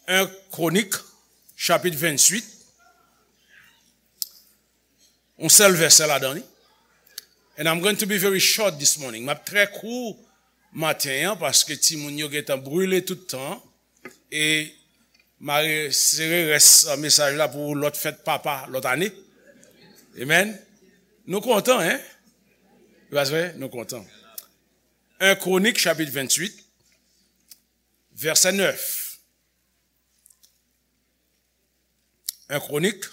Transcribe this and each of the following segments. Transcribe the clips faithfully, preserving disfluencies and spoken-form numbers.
En Kronik, chapit venntuit. Yon sèl vèsè ladan li. And I'm going to be very short this morning. M ap trè kou maten an paske timoun yo gentan brile tout tan. E m a resere rès mesaj la pou lòt fèt papa lòt ane. Amen. Nou kontan, en? Se pa vre? Nou kontan. En Kronik, chapit venntuit, vèsè nèf. En Kronik,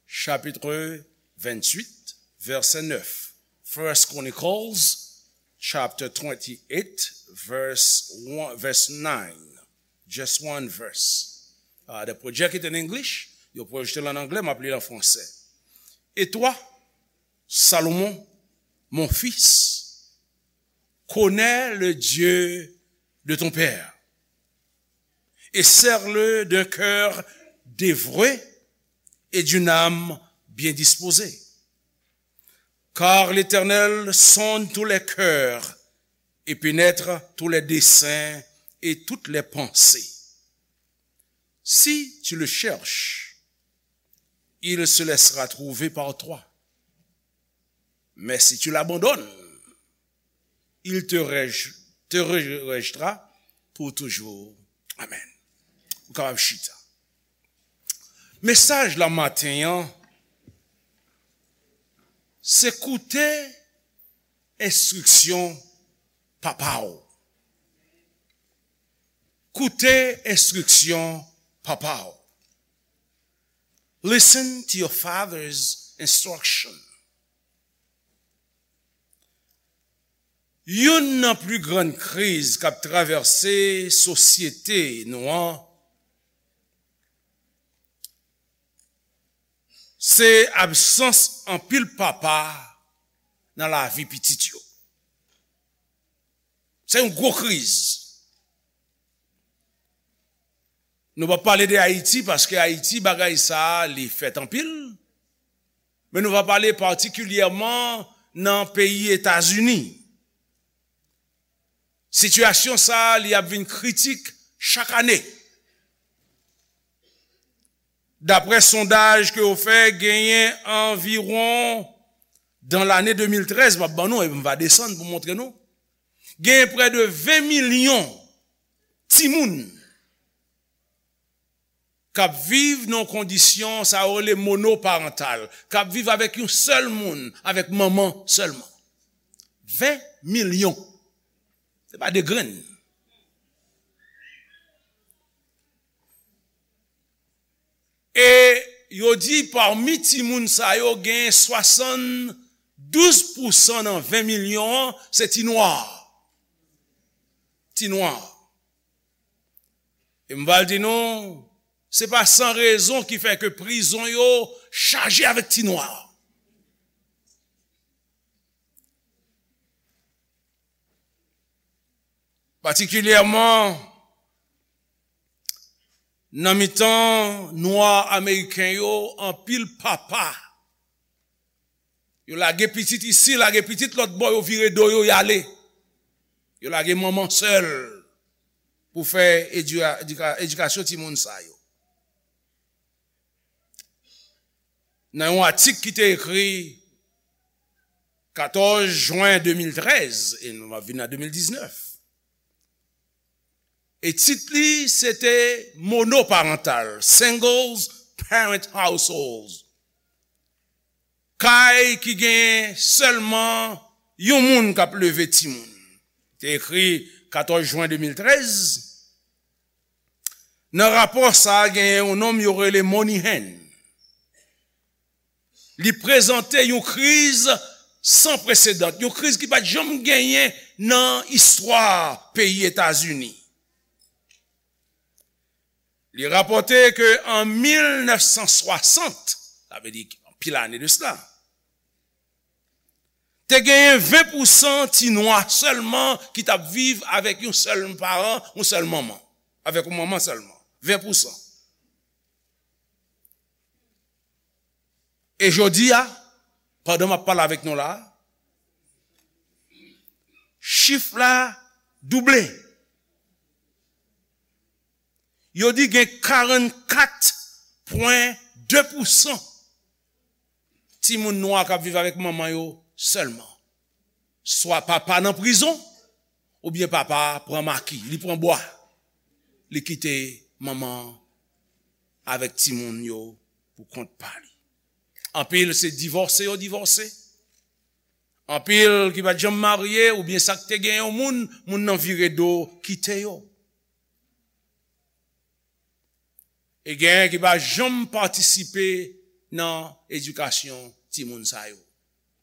chapit venntuit, vèsè nèf. First Chronicles, chapter twenty-eight, verse one, verse nine. Just one verse. Uh, the project it in English, yo pwojte l an anglè, m ap li l an fransè. Et toi, Salomon, mon fils, connais le Dieu de ton père, et sers-le d'un cœur dévoué et d'une âme bien disposée. Car l'Éternel sonde tous les cœurs et pénètre tous les desseins et toutes les pensées. Si tu le cherches, il se laissera trouver par toi. Mais si tu l'abandonnes, il te, rej- te rejettera pour toujours. Amen. Ou kapab chita. Mesaj la maten an, se koute enstriksyon papa w. Koute enstriksyon papa w. Listen to your father's instruction. Youn nan pli grann kriz k ap travèse sosyete nou an, se absans anpil papa nan lavi pitit yo. Se yon gwo kriz. Nou p ap pale de Ayiti, paske Ayiti, bagay sa a, li fèt anpil. Men nou va pale patikilyèman nan peyi Etazini. Sitiyasyon sa a, li ap vin kritik chak ane. Daprè sondaj ke yo fè, genyen anviwon, dan lane de mil trèz, m ap ban nou, e m va desann pou montre nou, genyen prè de ven milyon timoun k ap viv nan kondisyon sa yo rele monoparantal, k ap viv avèk yon sèl moun, avèk manman sèlman. Ven milyon. Se pa de grenn. E yo di pami timoun sa yo, gen swasanndouz pousan nan ven milyon an, se ti nwa. Ti nwa. E m pral di nou, se pa san rezon ki fè ke prizon yo chaje avèk ti nwa. Patikilyèman, nan mitan nwa ameriken yo, anpil papa, yo lage pitit isi, lage pitit lòt bò, yo vire do yo, y ale. Yo lage manman sèl pou fè edika- edika- edikasyon timoun sa yo. Nan yon atik ki te ekri katòz jen de mil trèz, e nou ap vin nan de mil diznèf. E tit li, se te monoparantal, singles parent households. Kay ki gen sèlman yon moun k ap leve timoun. Te ekri katòz jen de mil trèz. Nan rapò sa a, genyen yon nonm yo rele Moynihan. Li prezante yon kriz san presedan, yon kriz ki pa t janm genyen nan istwa peyi Etazini. Li rapòte ke an mil nèf san swasant, sa vle di anpil ane de sila, te genyen ven pousan ti nwa sèlman ki t ap viv avèk yon sèl paran, yon sèl manman, avèk yon manman sèlman. Ven pousan. E jodi a, pandan m ap pale avèk nou la, chif la double. Yo di gen karannkat pwen de pousan timoun nwa k ap viv avèk manman yo sèlman. Swa papa nan prizon, oubyen papa pran maki, li pran bwa, li kite manman avèk timoun yo pou kont pa li. Anpil se divòse yo divòse. Anpil ki pa t janm marye, oubyen sa k te gen yon moun, moun nan vire do kite yo. E genyen ki pa janm patisipe nan edikasyon timoun sa yo,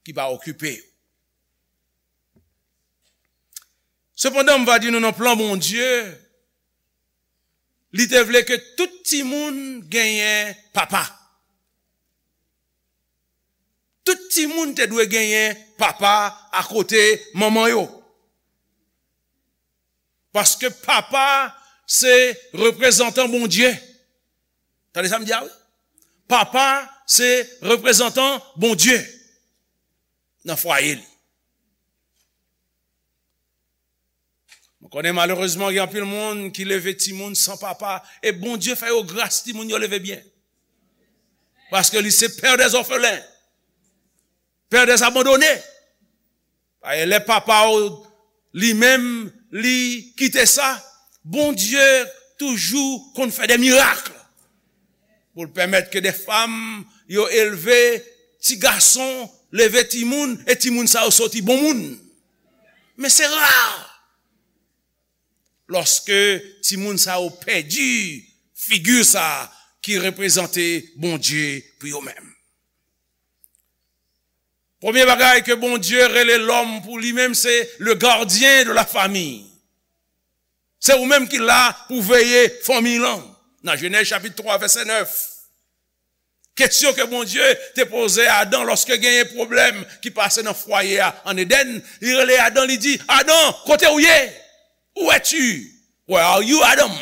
ki pa okipe yo. Sepandan, m va di nou nan plan Bondye, li te vle ke tout timoun genyen papa. Tout timoun te dwe genyen papa akote manman yo. Paske papa se reprezantan Bondye. Tande sa m di a wi. Papa se reprezantan Bondye nan fwaye li. Mwen konnen malerezman gen anpil moun ki leve timoun san papa. E Bondye fè yo gras, timoun yo leve byen. Paske li se pè dè zòfelen, pè dè abandone. Paske lè papa w li menm li kite sa, Bondye toujou konn fè de mirak pou l pèmèt ke de fanm yo elve ti gason, leve timoun, e timoun sa yo soti bon moun. Men se ra lòske timoun sa yo pèdi figi sa ki reprezante Bondye pou yo menm. Premye bagay ke Bondye rele lòm pou li menm, se le gardien de la famille. Se ou menm ki la pou veye fanmi lan. Nan Jenèz chapit twa, vèsè nèf. Kesyon ke Bondye te poze Adan lòske genyen pwoblèm ki pase nan fwaye a an Edenn, li rele Adan, li di, "Adan, kote w ye? Où es-tu? Where are you, Adam?"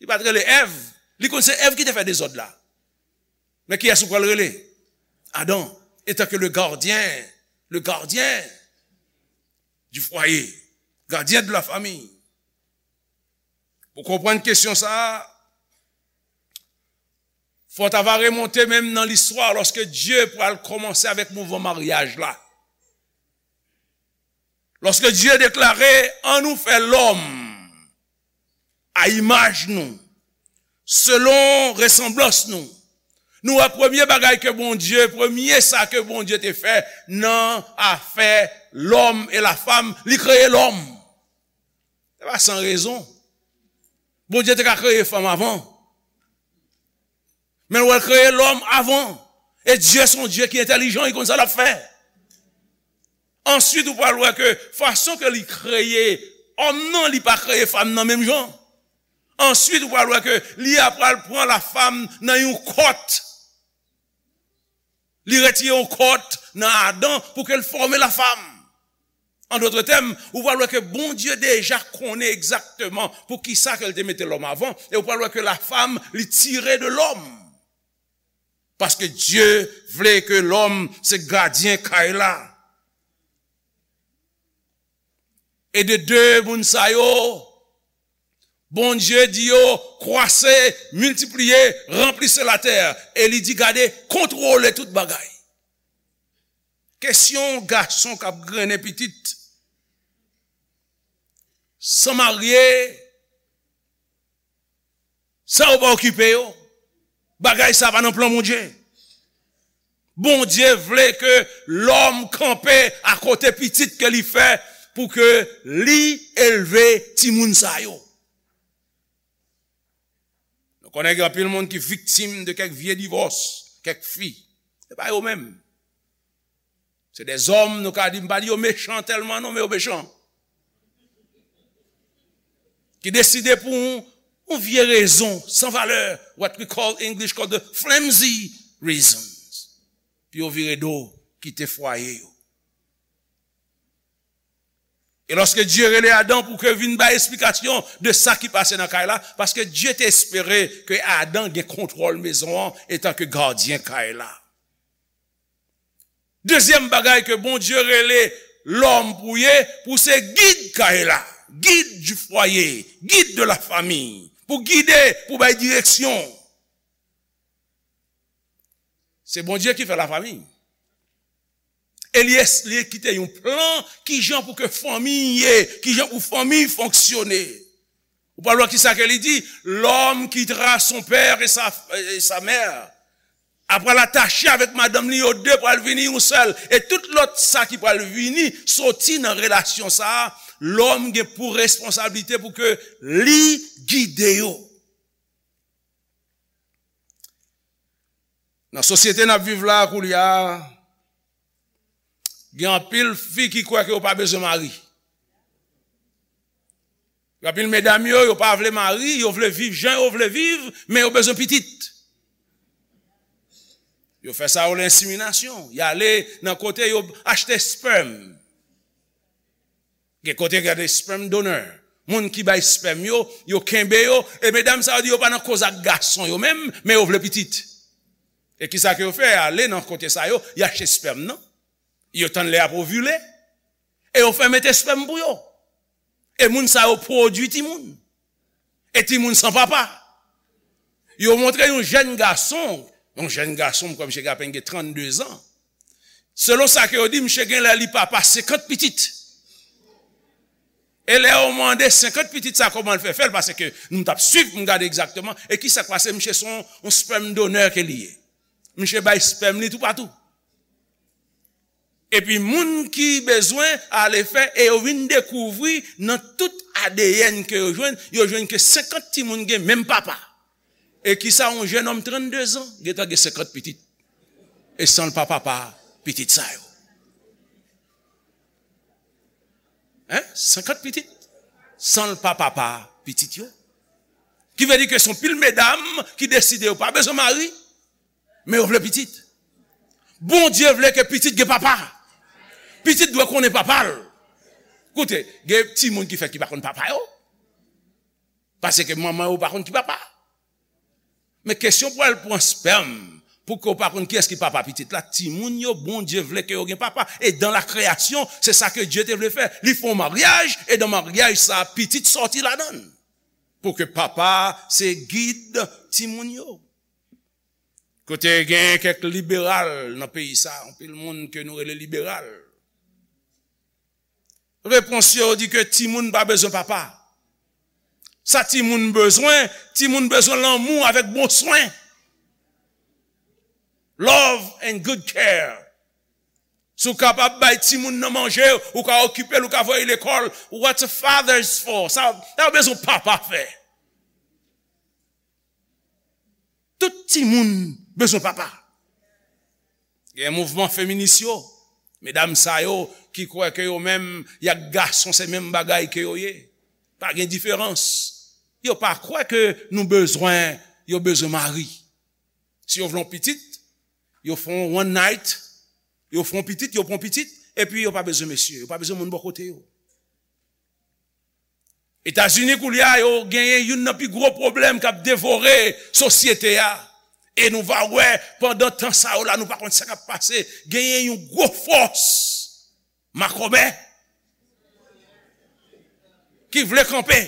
Li pa t rele Èv. Li konn se Èv ki te fè dezòd la. Men kiyès ou pral rele? Adan, etan ke le gardien, le gardien du foyer, gardien de la famille. Pou konprann kesyon sa a, fò w ta va remonte menm nan listwa lòske Dye pral kòmanse avèk mouvman maryaj la. Lòske Dye deklare, "An nou fè lòm a imaj nou, selon resanblans nou." Nou wè premye bagay ke Bondye, premye sa ke Bondye te fè nan afè lòm e lafanm, li kreye lòm. Se pa san rezon. Bondye te ka kreye fanm avan. Men l wè l kreye lòm avan. E Dye se yon Dye ki entèlijan, li konn sa l ap fè. Answit, ou pral wè ke fason ke li kreye òm nan, li pa kreye fanm nan menm jan. Answit, ou pral wè ke li a pral pran lafanm nan yon kòt. Li retire yon kòt nan Adan pou ke l fòme lafanm. An dòt tèm, ou pral wè ke Bondye deja konnen egzakteman poukisa ke l te mete lòm avan, e ou pral wè ke lafanm, li tire de lòm. Paske Dye vle ke lòm se gadyen kay la. E de de moun sa yo, Bondye di yo, "Kwase, miltipliye, ranplise latè." E li di, "Gade, kontwole tout bagay." Kesyon gason k ap grennen pitit san marye, sa yo pa okipe yo. Bagay sa pa nan plan Bondye. Bondye vle ke lòm kanpe akote pitit ke li fè pou ke li elve timoun sa yo. Nou konnen gen anpil moun ki viktim de kèk vye divòs, kèk fi. Se pa yo menm. Se de zòm, nou ka di, m pa di yo mechan tèlman non, men yo mechan. Ki deside pou yon, yon vye rezon san valè, what we call English called the flimsy reasons, pou yo vire do, kite fwaye yo. E lòske Dye rele Adan pou ke vin bay esplikasyon de sa ki pase nan kay la, paske Dye te espere ke Adan gen kontwòl mezon an etan ke gadyen kay la. Dezyèm bagay ke Bondye rele lòm pou ye, pou se gid kay la. Guide du foyer, guide de la famille, pou gide, pou bay direksyon. Se Bondye ki fè lafanmi. E li, li kite yon plan, kijan pou ke fanmi ye, kijan pou fanmi fonksyone. Ou pral wè kisa ke li di, l'homme quittera son père et sa, et sa mère. Apre l atache avèk madanm li, yo de pral vini yon sèl. E tout lòt sa ki pral vini, soti nan relasyon sa a, lòm gen pou responsablite pou ke li gide yo. Nan sosyete n ap viv la koulye a, gen anpil fi ki kwè ke yo pa bezwen mari. Gen anpil medam yo, yo pa vle mari, yo vle viv jan yo vle viv, men yo bezwen pitit. Yo fè sa yo rele enseminasyon. Y ale nan kote yo achte espèm. Gen kote gen de sperm donor. Moun ki bay espèm yo, yo kenbe yo, e medam sa yo di yo pa nan koz ak gason yo menm, men yo vle pitit. E kisa ke yo fè? Ale nan kote sa yo, y achte espèm nan. Yo tann lè y ap ovile. E yo fè mete espèm pou yo. E moun sa yo pwodui timoun. E timoun san papa. Yo montre yon jèn gason, yon jèn gason, m kwè misye gen apèn gen trannde zan. Selon sa ke yo di, misye gen lè li papa senkant pitit. E lè yo mande senkant pitit sa kòman l fè fè l, paske m t ap swiv pou m gade egzakteman, e kisa k pase, misye se yon, yon sperm donor ke li ye. Misye bay espèm li toupatou. Epi moun ki bezwen ale fè, e yo vin dekouvri nan tout A D N ke yo jwenn, yo jwenn ke senkant timoun gen menm papa. E kisa yon jennonm trannde zan gentan gen senkant pitit? E san l pa papa pitit sa yo. Hein? Senkant pitit? San l pa papa pitit yo. Ki vle di ke se yon pil medam ki deside yo pa bezwen mari, men yo vle pitit. Bondye vle ke pitit gen papa. Pitit dwe konnen papa l. Koute, gen timoun ki fèt ki pa konn papa yo. Paske manman yo pa konn ki papa. Men kesyon pou al pran espèm, pou ke w pa konn kiyès ki papa pitit la, timoun yo, Bondye vle ke yo gen papa. E dans la création, se sa ke Dye te vle fè. Li fè yon maryaj, e nan maryaj sa, pitit sòti ladan l. Pou ke papa se gid timoun yo. Kote gen kèk liberal nan peyi sa, anpil moun ke nou rele liberal. Repons yo di ke timoun pa bezwen papa. Sa timoun bezwen, timoun bezwen lanmou avèk bon swen. Love and good care. Si w kapab bay timoun nan manje, ou ka okipe l, ou ka voye l lekòl. What a father is for. Sa, sa yo bezwen papa fè. Tout timoun bezwen papa. Gen mouvman feminis yo, medam sa yo ki kwè ke yo menm y ak gason se menm bagay ke yo ye. Pa gen diferans. Yo pa kwè ke nou bezwen, yo bezwen mari. Si yo vle yon pitit, yo fè yon one night, yo fè yon pitit, yo pran pitit, epi yo pa bezwen mesye, yo pa bezwen moun bò kote yo. Etazini koulye a, yo genyen youn nan pi gwo pwoblèm k ap devore sosyete a. E nou va wè, pandan tan sa yo la, nou pa konn sa k ap pase, genyen yon gwo fòs makòmè ki vle kanpe.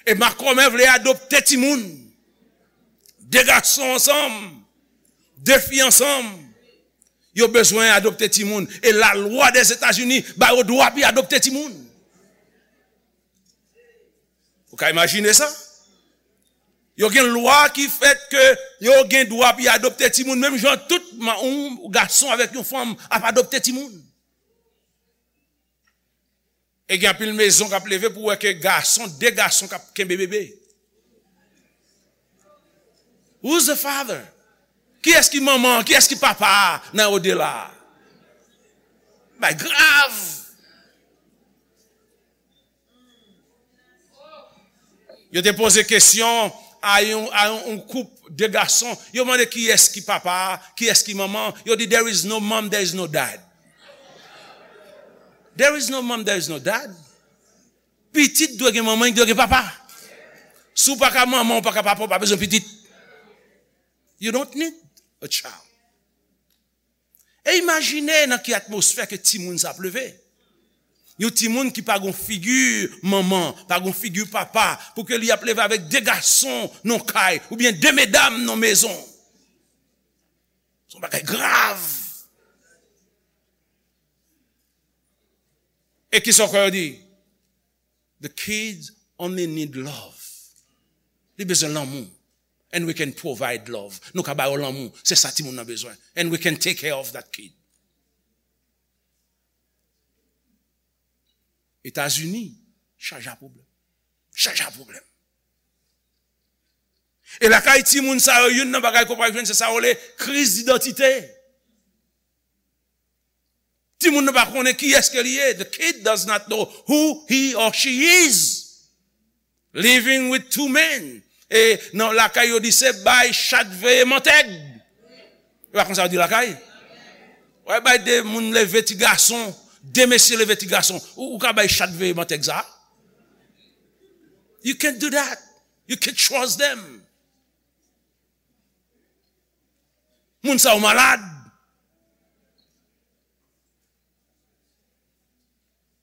E makòmè vle adopte timoun. De gason ansanm, de fi ansanm. Yo bezwen adopte timoun. E lalwa Dèzetazini ba yo dwa pou y adopte timoun. Ou ka imajine sa? Yo gen lwa ki fèt ke yo gen dwa pou y adopte timoun, menm jan tout ma-, yon gason avèk yon fanm ap adopte timoun. E gen anpil mezon k ap leve pou wè ke gason, de gason k ap kenbe bebe. Who's the father? Kiyès ki manman? Kiyès ki papa nan odela? Bay grav. Yo te poze kesyon a yon, a yon, yon koup de gason. Yo mande kiyès ki papa, kiyès ki manman. Yo di, "There is no mom, there is no dad." There is no mom, there is no dad. Pitit dwe gen manman, li dwe gen papa. Si w pa ka manman, w pa ka papa, w pa bezwen pitit. You don't need a child. E imajine nan ki atmosfè ke timoun sa ap leve. Yon timoun ki pa gon figi manman, pa gon figi papa, pou ke li ap leve avèk de gason nan kay, oubyen de medam nan mezon. Se yon bagay grav. E ki sa w kwè yo di? The kids only need love. Li bezwen lanmou. And we can provide love. Nou ka ba yo lanmou. Se sa timoun nan bezwen. And we can take care of that kid. Etazini, chaje a pwoblèm. Chaje a pwoblèm. E lakay timoun sa yo, youn nan bagay ke w pral jwenn, se sa yo rele kriz idantite. Timoun nan pa konnen kiyès ke li ye. The kid does not know who he or she is. Living with two men. E nan lakay yo di se bay chat veye mantèg. E pa konsa yo di lakay? Wè bay de moun leve ti gason, de mesye leve ti gason. Ou, ou ka bay chat veye mantèg sa? You can't do that. You can't trust them. Moun sa yo malad.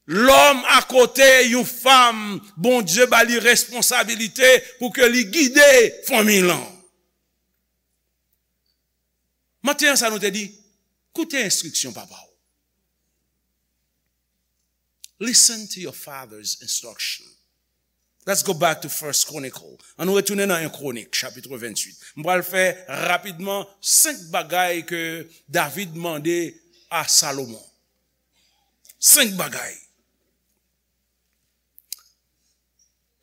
Lòm akote yon fanm, Bondye ba li responsabilite pou ke li gide fanmi lan. Maten an sa nou te di, koute enstriksyon papa w. Listen to your father's instruction. Let's go back to First Chronicle. Ann nou retounen nan en Kronik, chapit venntuit. M pral fè rapidman senk bagay ke David mande a Salomon. Senk bagay.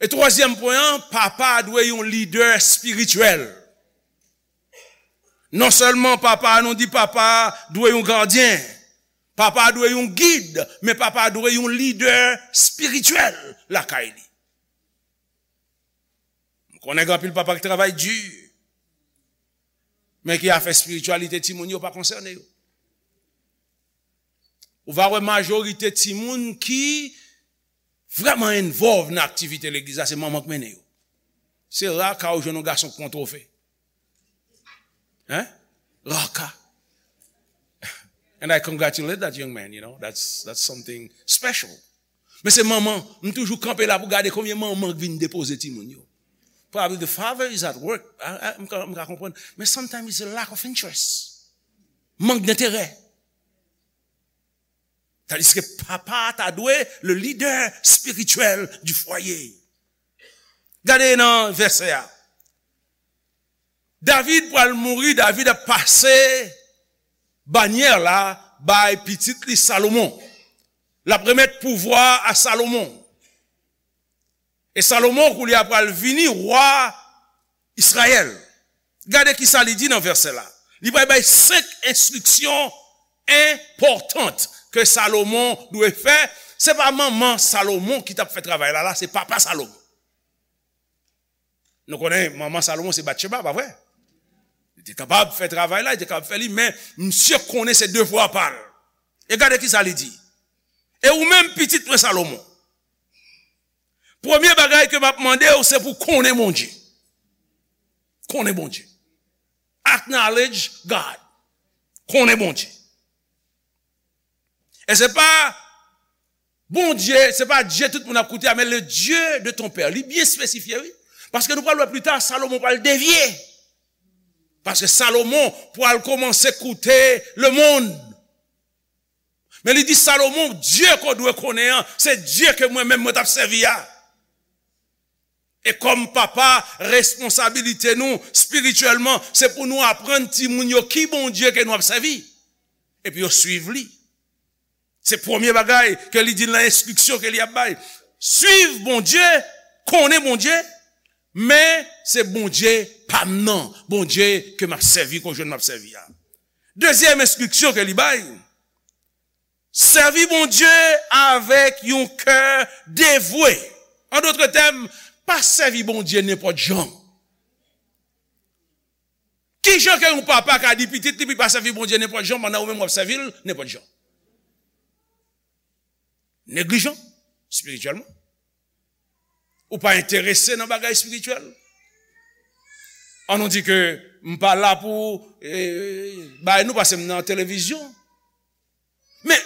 E twazyèm pwen an, papa dwe yon lidè espirityèl. Non sèlman papa, nou di papa dwe yon gadyen, papa dwe yon gid, men papa dwe yon lidè espirityèl lakay li. M konnen gen anpil papa ki travay di, men ki afè espirityalite timoun yo pa konsène yo. Ou va wè majorite timoun ki vrèman involve nan aktivite legliz la, se manman k mennen yo. Se ra ka ou jwenn yon gason k pran twofe. Hein? Ra ka. And I congratulate that young man, you know. That's, that's something special. Men se manman, m toujou kanpe la pou gade konbyen manman k vin depoze timoun yo. Probably the father is at work. I, I, m ka, m ka konprann. Men sometimes it's a lack of interest. Mank denterè. Tandiske papa ta dwe le leader spirituel du foyer. Gade nan vèsè a. David pral mouri, David ap pase banyè la bay pitit li Salomon. L ap remèt pouvwa a Salomon. E Salomon koulye a pral vini wa Izrayèl. Gade kisa li di nan vèsè la. Li pral bay senk enstriksyon enpòtan ke Salomon dwe fè. Se pa manman Salomon ki t ap fè travay la, la, se papa Salomon. Nou konnen manman Salomon se Batcheba, pa vre? Li te kapab fè travay la, li te kapab fè li, men misye konnen se devwa pa l. E gade kisa li di. E ou menm, pitit mwen Salomon, premye bagay ke m ap mande w, se pou konnen Bondye. Konnen Bondye. Acknowledge God. Konnen Bondye. E se pa Bondye, se pa Dye tout moun ap koute a, men le Dieu de ton père. Li byen espesifye, wi. Paske nou pral wè pli ta, Salomon pral devye. Paske Salomon pral kòmanse koute lemonn. Men li di Salomon, Dye ke w dwe konnen an, se Dye ke mwen menm mwen t ap sèvi a. E kòm papa, responsabilite nou espirityèlman, se pou nou aprann timoun yo ki Bondye ke nou ap sèvi. Epi yo swiv li. Se premye bagay ke li di nan enstriksyon ke li ap bay. Swiv Bondye, konnen Bondye, men se Bondye pa m nan, Bondye ke m ap sèvi, ke w jwenn m ap sèvi a. Dezyèm enstriksyon ke li bay, sèvi Bondye avèk yon kè devwe. An dòt tèm, pa sèvi Bondye nenpòt jan. Ki jan ke yon papa ka di pitit li pou l pa sèvi Bondye nenpòt jan pandan ou menm w ap sèvi l nenpòt jan? Neglijan, espirityèlman. Ou pa enterese nan bagay espirityèl. An nou di ke m pa la pou, eh, bay nou, paske m nan televizyon. Men,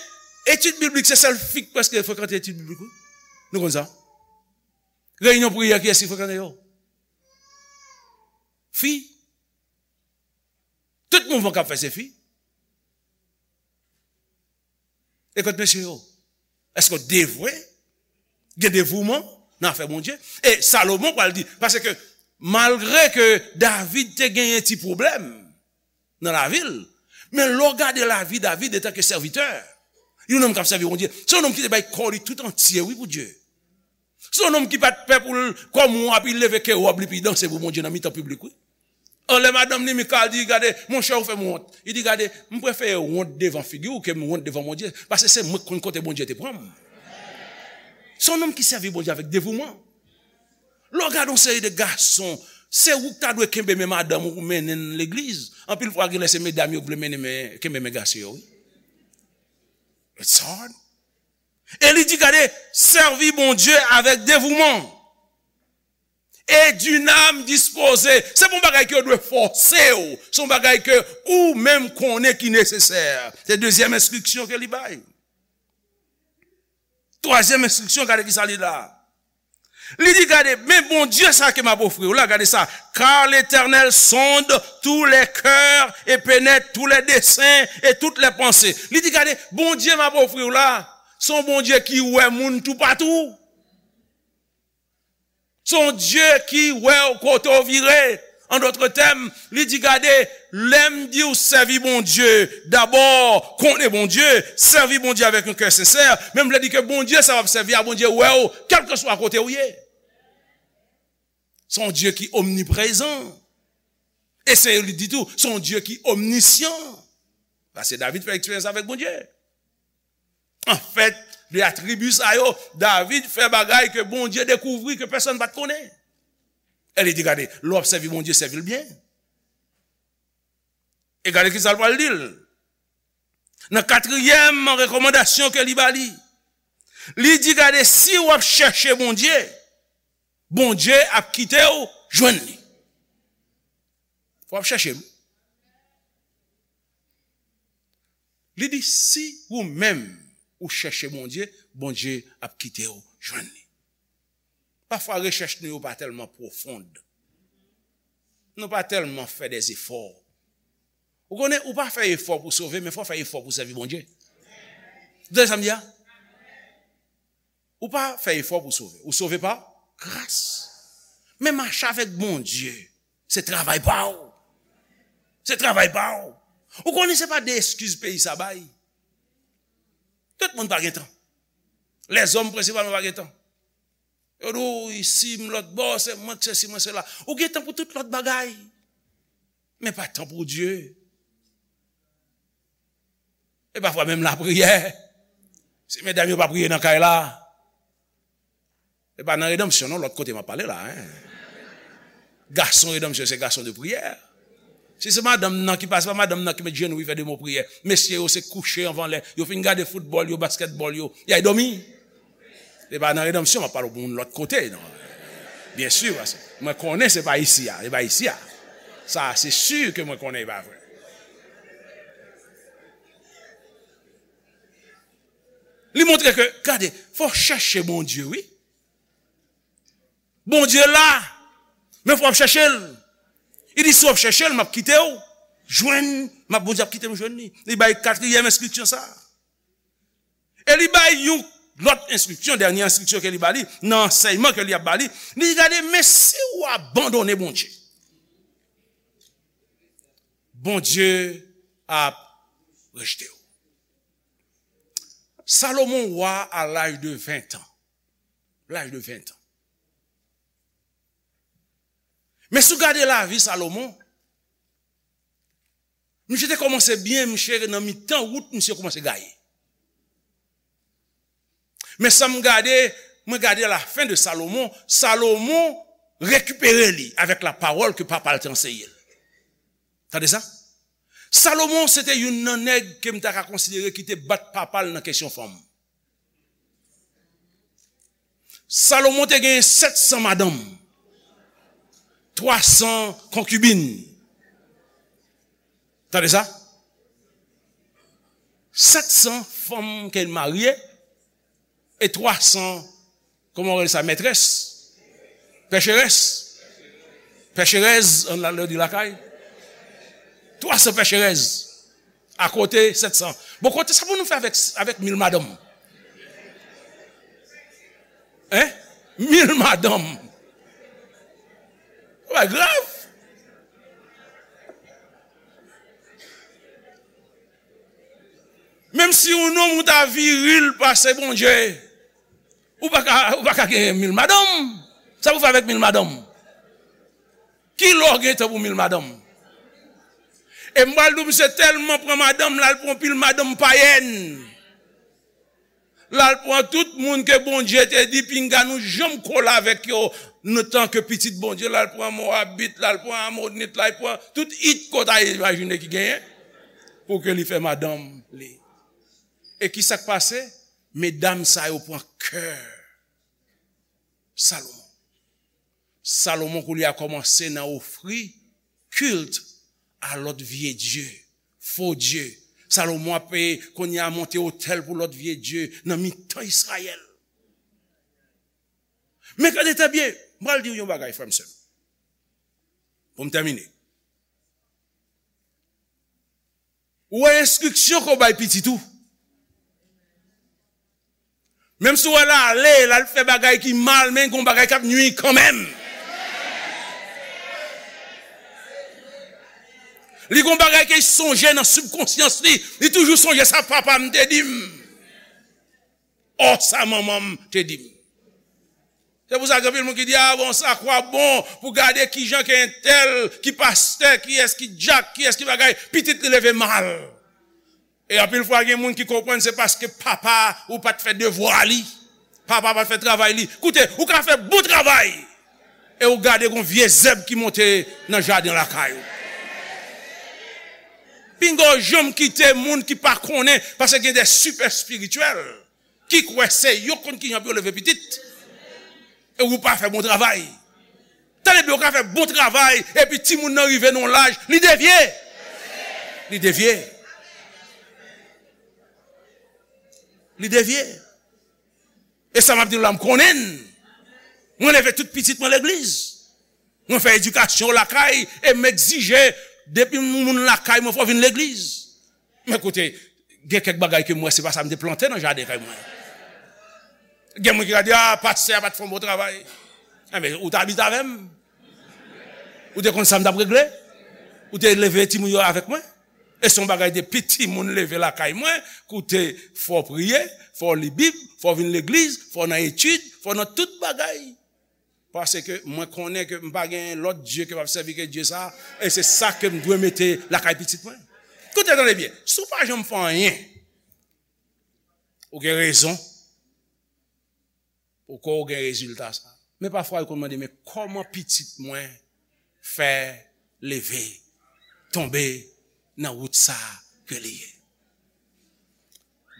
e, Etid biblik, se sèl fi k prèske frekante etid biblik, wi. Nou konn sa. Reyinyon priyè, kiyès ki frekante yo? Fi. Tout mouvman k ap fè se fi. E kot mesye yo? Èske w devwe? Gen devouman nan afè Bondye? E Salomon pral di, paske malgre ke David te genyen ti pwoblèm nan lavi l, men lè w gade lavi David antanke sèvitè, yon nonm k ap sèvi Bondye, se yon nonm ki te bay kò li tout antye, wi, pou Dye. Se yon nonm ki pa t pè pou l, kòm w ap, li leve ke wòb li, pi danse pou Bondye nan mitan piblik, wi. An lè madanm li, Mikal, di, "Gade, monchè, ou fè m wont." Li di, "Gade, m prefere wont devan figi w ke m wont devan Bondye, paske se mwen k konn kote Bondye te pran m." Se yon nonm ki sèvi Bondye avèk devouman. Lè w gade yon seri de gason, se ou k ta dwe kenbe men madanm ou pou mennen l legliz. Anpil fwa, genlè se medam yo k vle mennen men, kenbe men gason yo, wi. It's hard. E li di, gade, sèvi Bondye avèk devouman. Et d'une âme disposée. Se pa yon bagay ke yo dwe fòse w. Se yon bagay ke ou menm konnen ki nesesè. Se dezyèm enstriksyon ke li bay. Twazyèm enstriksyon, gade ki sa li la. Li di, gade, men Bondye sa ke m ap ofri w la, gade sa. Car l'Éternel sonde tous les cœurs et pénètre tous les desseins et toutes les pensées. Li di, gade, Bondye m ap ofri w la, se yon Bondye ki wè moun toupatou. Se yon Dye ki wè w kote w vire. An dòt tèm, li di, gade, lè m di w sèvi Bondye, dabò, konnen Bondye, sèvi Bondye avèk yon kè sensè, men m vle di ke Bondye sa w ap sèvi a, Bondye wè w, kèlkeswa kote w ye. Se yon Dye ki omniprezan. E se li di tou, se yon Dye ki omnisyan. Paske David fè eksperyans avèk Bondye. Anfèt, de atribi sa yo, David fè bagay ke Bondye dekouvri ke pèsonn pa t konnen. E li di, gade, lè w ap sèvi Bondye, sèvi l byen. E gade ki sa l pral di l. Nan katriyèm rekòmandasyon ke li ba li, li di, gade, si w ap chèche Bondye, Bondye ap kite w jwenn li. Fò w ap chèche m. Li di, si ou menm ou chèche Bondye, Bondye ap kite w jwenn li. Pafwa, rechèch nou yo pa tèlman pwofon. Nou pa tèlman fè dè efò. Ou konnen, ou pa fè efò pou sove, men fò w fè efò pou sèvi Bondye. Ou tande sa m di a? Ou pa fè efò pou sove. Ou sove pa gras. Men mache avèk Bondye, se travay pa w. Se travay pa w. Ou konnen se pa de eskiz peyi sa bay. Tout moun pa gen tan. Lèzòm prensipalman pa gen tan. Yo di w isi, m lòt bò, se mwen k sesi, mwen sela. Ou gen tan pou tout lòt bagay. Men pa tan pou Dye. E pafwa menm lapriyè. Si medam yo pa priye nan kay la, e pa nan redanmsyon non, lòt kote m ap pale la, en. Gason redanmsyon, se gason de priyè. Si se madanm nan ki pase, pa madanm nan ki met jenou, li fè de mo priyè. Mesye yo se kouche anvan lè. Yo fin gade foutbòl yo, baskètbòl yo, y al dòmi. Se pa nan redanmsyon, m ap pale pou moun lòt kote, non. Byen si, paske mwen konnen se pa isi a, se pa isi a. Sa, se si ke mwen konnen e pa vre. Li montre ke, gade, fò w chèche Bondye, wi. Bondye la, men fò w ap chèche l. Li di, si w ap chèche l, m ap kite w jwenn, m ap, Bondye ap kite m jwenn li. Li bay katriyèm enstriksyon sa. E li bay yon lòt enstriksyon, dènye enstriksyon ke li ba li, nan ansèyman ke li ap ba li, li di, gade, men si w abandone Bondye, Bondye ap rejte w. Salomon wa a laj de ven an. Laj de ven an. Men si w gade lavi Salomon, misye te kòmanse byen, misye nan mitan wout, misye kòmanse gaye. Men sa m gade, mwen gade lafen de Salomon, Salomon rekipere li avèk lapawòl ke papa l te anseye l. Tande sa? Salomon se te youn nan nèg ke m ta ka konsidere ki te bat papa l nan kesyon fanm. Salomon te gen sèt san madanm, twa san konkibin. Tande sa? Sèt san fanm ke l marye, e twa san, kòman w rele sa, mètrès? Pècherès. Pècherèz, ann al di lakay. Twa san pècherèz. Akote sèt san. Bon, kote sa pou nou fè avèk, avèk mil madanm? Hein? Mil madanm. Sa grav. Menm si yon nonm ou ta viril pase Bondye, ou pa ka, ou pa ka gen mil madanm. Sa pou fè avèk mil madanm? Ki lè w gen tan pou mil madanm? E m pral di w, misye tèlman pran madanm, l al pran pil madanm payèn. L al pran tout moun ke Bondye te di pinga nou janm kole avèk yo, nou tanke pitit Bondye, l al pran Mowabit, l al pran Amonit, l al pran tout it ke w ta imajine ki genyen, pou ke li fè madanm li. E ki sa k pase? Medam sa yo pran kè Salomon. Salomon kounye a kòmanse nan ofri kilt a lòt vye dye, fo dye. Salomon ap, eh, kounye a monte otèl pou lòt vye dye nan mitan Izrayèl. Men gade trè byen, m pral di w yon bagay, frè m, sè m. Pou m tèmine. Ou wè enstriksyon ke w bay pitit ou. Menm si w wè l ale, l al fè bagay ki mal, men gon bagay k ap nui kanmenm. Li gon bagay ke l sonje nan sibkonsyans li. Li toujou sonje sa papa m te di m. Ò, sa manman m te di m. Se pou sa gen anpil moun ki di, "Ah bon, sa kwa bon pou gade kijan ke entèl, ki pastè, kiyès ki dyak, kiyès ki bagay, pitit li leve mal." E anpil fwa gen moun ki konprann se paske papa ou pa t fè devwa li. Papa pa t fè travay li. Koute, ou ka fè bon travay e ou gade gon vye zèb ki monte nan jaden lakay ou. Pinga w janm kite moun ki pa konnen, paske gen de sipè espirityèl ki kwè se yo konn kijan pou yo leve pitit. E ou pa fè bon travay. Tande byen, ou ka fè bon travay, epi timoun nan rive nan yon laj, li devye. Li devye. Li devye. E sa m ap di w la, m konnen l. Mwen leve tout pitit mwen legliz. Mwen fè edikasyon lakay, e m egzije, depi moun lakay mwen, fò w vin legliz. Men koute, gen kèk bagay ke m wè se pa sa m te plante nan jaden kay mwen. Gen moun ki ka di, "Ah, pastè a pa t fè yon bon travay." Enben, ou t abite avè m. Ou te konn sa m t ap regle. Ou te leve timoun yo avèk mwen. E se yon bagay depi timoun leve lakay mwen, koute, fò w priye, fò w li Bib, fò w vin legliz, fò w nan etid, fò w nan tout bagay. Paske mwen konnen ke m pa gen lòt Dye ke m ap sèvi ke Dye sa, e se sa ke m dwe mete lakay pitit mwen. Koute, tande byen, si w pa janm fè anyen, ou gen rezon poko w gen rezilta sa. Men pafwa, yo konn mande, "Men kòman pitit mwen fè leve, tonbe nan wout sa ke li ye?"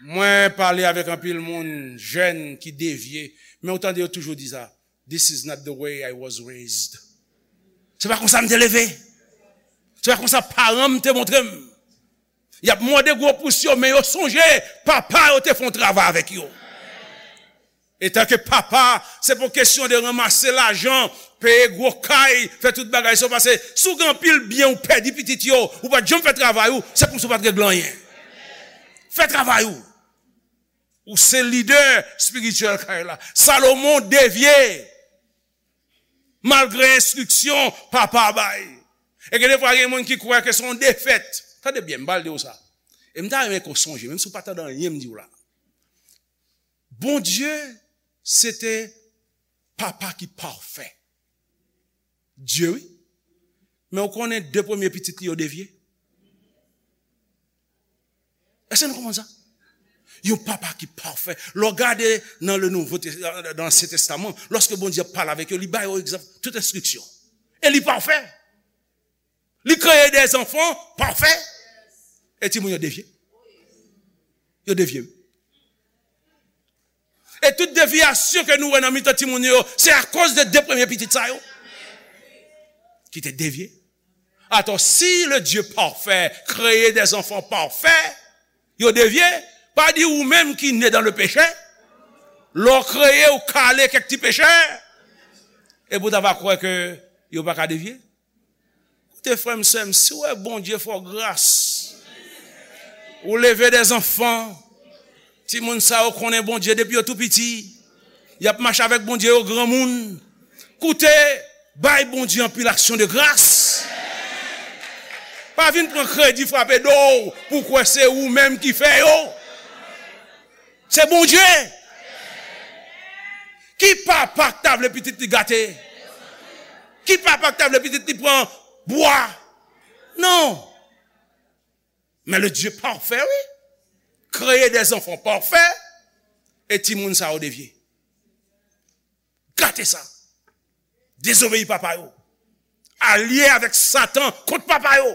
Mwen pale avèk anpil moun, jèn ki devye, men ou tande yo toujou di sa, "This is not the way I was raised." Se pa konsa m te leve. Se pa konsa paran m te montre m. Y ap mòde gwo pous yo, men yo sonje papa yo te fè yon travay avèk yo. Etanke papa, se pa kesyon de ranmase lajan, peye gwo kay, fè tout bagay sa, paske si w gen anpil byen ou pèdi pitit yo, ou pa t janm fè travay ou, se kòmsi w pa t regle anyen. Fè travay ou. Ou se lidè espirityèl kay la. Salomon devye malgre enstriksyon papa bay. E gen defwa gen moun ki kwè ke se yon defèt. Tande byen, m pral di w sa. E m ta renmen ke w sonje, menm si w pa tande anyen m di w la. Bondye, se te papa ki pafè. Dye, wi. Men w konnen de premye pitit li yo devye? Èske nou konprann sa? Yon papa ki pafè. Lè w gade nan le Nouveau Tes-, dans l'Ancien Testament, lòske Bondye ap pale avèk yo, li ba yo egzanp, tout enstriksyon. E li pafè. Li kreye de zanfan pafè. E timoun yo devye. Yo devye. E tout devyasyon ke nou wè nan mitan timoun yo, se akoz de de premye pitit sa yo ki te devye. Atò, si le Dieu parfait kreye des enfants parfaits, Yo devye, pa di ou menm ki ne dan le peche, lè w kreye, w kale kèk ti pechè, epi w ta va kwè ke yo pa ka devye. Koute, frè m, sè m, si w wè Bondye fè w gras, ou leve dè zanfan, timoun sa yo konnen Bondye depi yo tou piti, y ap mache avèk Bondye yo granmoun. Koute, bay Bondye anpil aksyon de gras. Pa vin pran kredi, frape do w pou kwè se ou menm ki fè yo. Se Bondye. Ki papa k ta vle pitit li gate? Ki papa k ta vle pitit li pran bwa? Non. Men le Dieu parfait, wi. Kreye dè zanfan pafè, e timoun sa yo devye. Gate sa. Dezobeyi papa yo. Alye avèk Satan kont papa yo.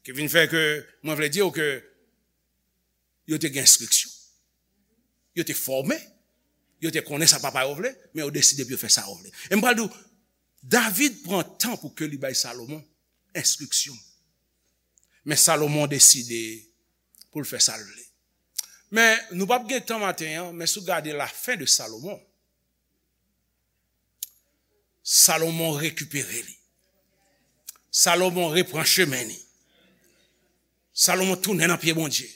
Ki vin fè ke mwen vle di w ke yo te gen enstriksyon. Yo te fòme. Yo te konnen sa papa yo vle, men yo deside pou yo fè sa yo vle. E m pral di w, David pran tan pou ke li bay Salomon enstriksyon. Men Salomon deside pou l fè sa l vle. Men nou p ap gen tan maten an, men si w gade lafen de Salomon, Salomon rekipere li. Salomon repran chemen li. Salomon tounen nan pye Bondye.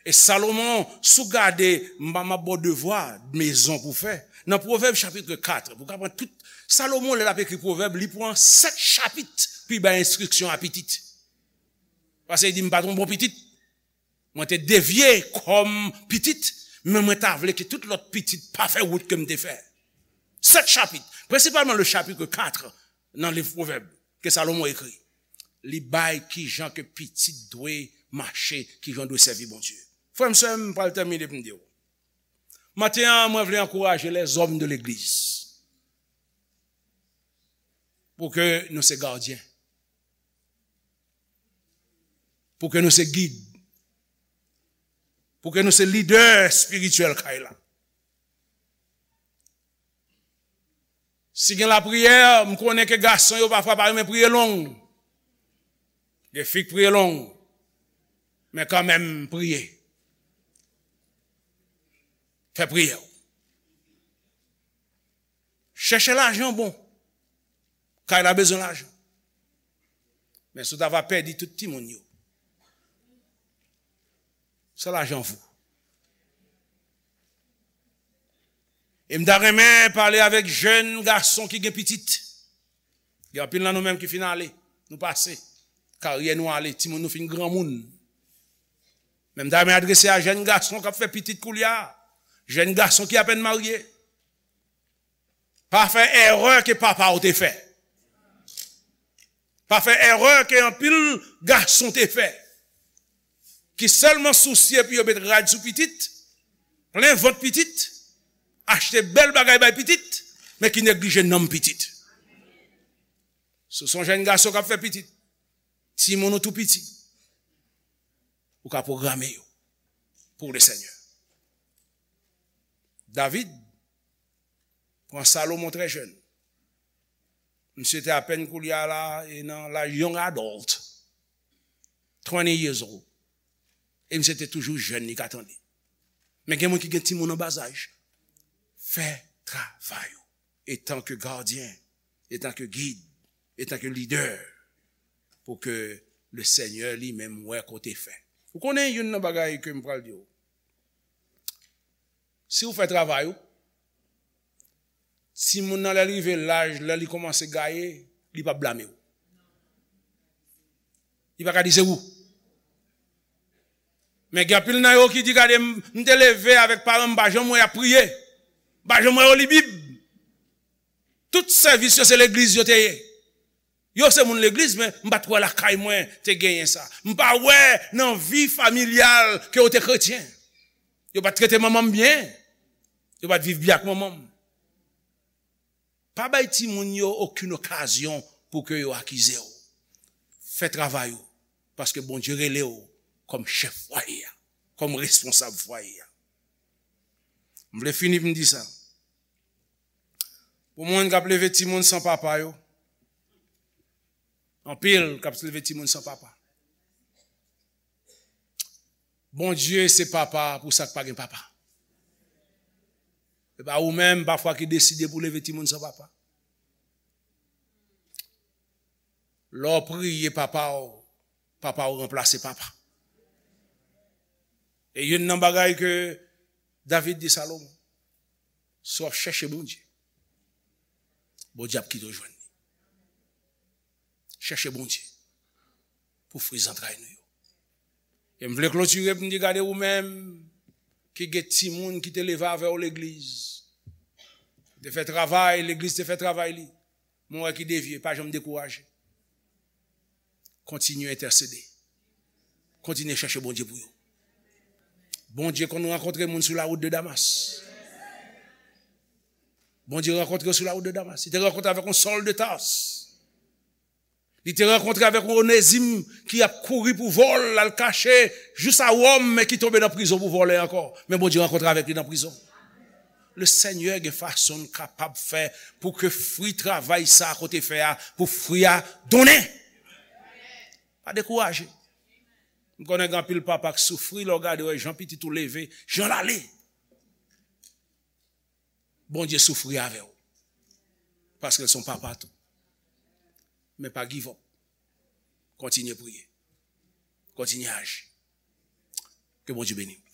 E Salomon, si w gade, m, m ap ba w devwa mezon pou w fè. Nan Pwovèb chapit kat, pou w ka pran tout, Salomon, lè l ap ekri Pwovèb, li pran sèt chapit pou l bay enstriksyon a pitit. Paske li di, "M pa t yon bon pitit. Mwen te devye kòm pitit, men mwen ta vle ke tout lòt pitit pa fè wout ke m te fè." Sèt chapit, prensipalman le chapitre quatre nan liv Pwovèb ke Salomon ekri. Li bay kijan ke pitit dwe mache, kijan dwe sèvi Bondye. Frè m, sè m, m pral tèmine pou m di w. Maten an, mwen vle ankouraje lèzòm de legliz pou ke nou se gadyen. Pou ke nou se gid. Pou ke nou se lidè espirityèl kay la. Si gen lapriyè, m konnen ke gason yo pafwa pa renmen priye long. Gen fi k priye long. Men kanmenm, priye. Fè priyè w. Chèche lajan bon. Kay la bezwen lajan. Men si w ta va pèdi tout timoun yo, sa lajan vou. E m ta renmen pale avèk jèn gason ki gen pitit. Gen anpil nan nou menm ki fin ale. Nou pase. Karyè nou ale. Timoun nou fin granmoun. Men m ta renmen adrese a jèn gason k ap fè pitit koulye a. Jèn gason ki apèn marye. Pa fè erè ke papa w te fè. Pa fè erè ke anpil gason te fè. Ki sèlman sousye pou yo met rad sou pitit, plen vant pitit, achte bèl bagay bay pitit, men ki neglije nanm pitit. Si w se yon jèn gason k ap fè pitit, timoun ou tou piti, ou ka pwograme yo pou le Senyè. David pran Salomon trè jèn. Misye te apèn koulye a la, e nan laj, young adult, twenty years old. E misye te toujou jèn, li ka tande. Men gen moun ki gen timoun an bazaj. Fè travay ou. Etanke gadyen, etanke gid, etanke lidè, pou ke le Senyè li menm wè kote fè. Ou konnen youn nan bagay ke m pral di w. Si w fè travay ou, timoun nan lè l rive laj, lè li kòmanse gaye, li p ap blame w. Li pa ka di se ou. Men gen anpil nan yo ki di, "Gade, m, m te leve avèk paran m, m pa janm wè y ap priye. M pa janm wè yo li Bib. Tout sèvis yo se legliz yo te ye." Yo se moun legliz, men m pa t wè lakay mwen te genyen sa. M pa wè nan vi familyal ke yo te kretyen. Yo pa t trete manman m byen. Yo pa t viv byen ak manman m. Pa bay timoun yo okenn okazyon pou ke yo akize w. Fè travay ou, paske Bondye rele w kòm chèf fwaye a, kòm responsab fwaye a. M vle fini pou m di sa. Pou moun k ap leve timoun san papa yo, anpil k ap leve timoun san papa. Bondye se papa pou sa k pa gen papa. E pa ou menm pafwa ki deside pou leve timoun san papa. Lè w priye papa w, papa w ranplase papa. E youn nan bagay ke David di Salomon, si w ap chèche Bondye, Bondye ap kite w jwenn li. Chèche Bondye pou fri zantray nou yo. E m vle klotire pou m di, gade ou menm ki gen timoun ki te leve avè w legliz. Te fè travay, legliz te fè travay li. Mwen wè ki devye, pa janm dekouraje. Kontinye entèsede. Kontinye chèche Bondye pou yo. Bondye konn rankontre moun sou lawout de Damas. Bondye rankontre yo sou lawout de Damas. Li te rankontre avèk yon Sòl de Tas. Li te rankontre avèk yon Onezim ki ap kouri pou vòl, l al kache jous a Wòm, men ki tonbe nan prizon pou vòlè ankò. Men Bondye rankontre avèk li nan prizon. Le Senyè gen fason l kapab fè pou ke fri travay sa a kote fè a, pou fri a donnen. Pa dekouraje. M konnen gen anpil papa k soufri lè w gade wè jan pitit ou leve, jan l ale. Bondye soufri avè w. Paske l se yon papa tou. Men pa give up. Kontinye priye. Kontinye aji. Ke Bondye beni w.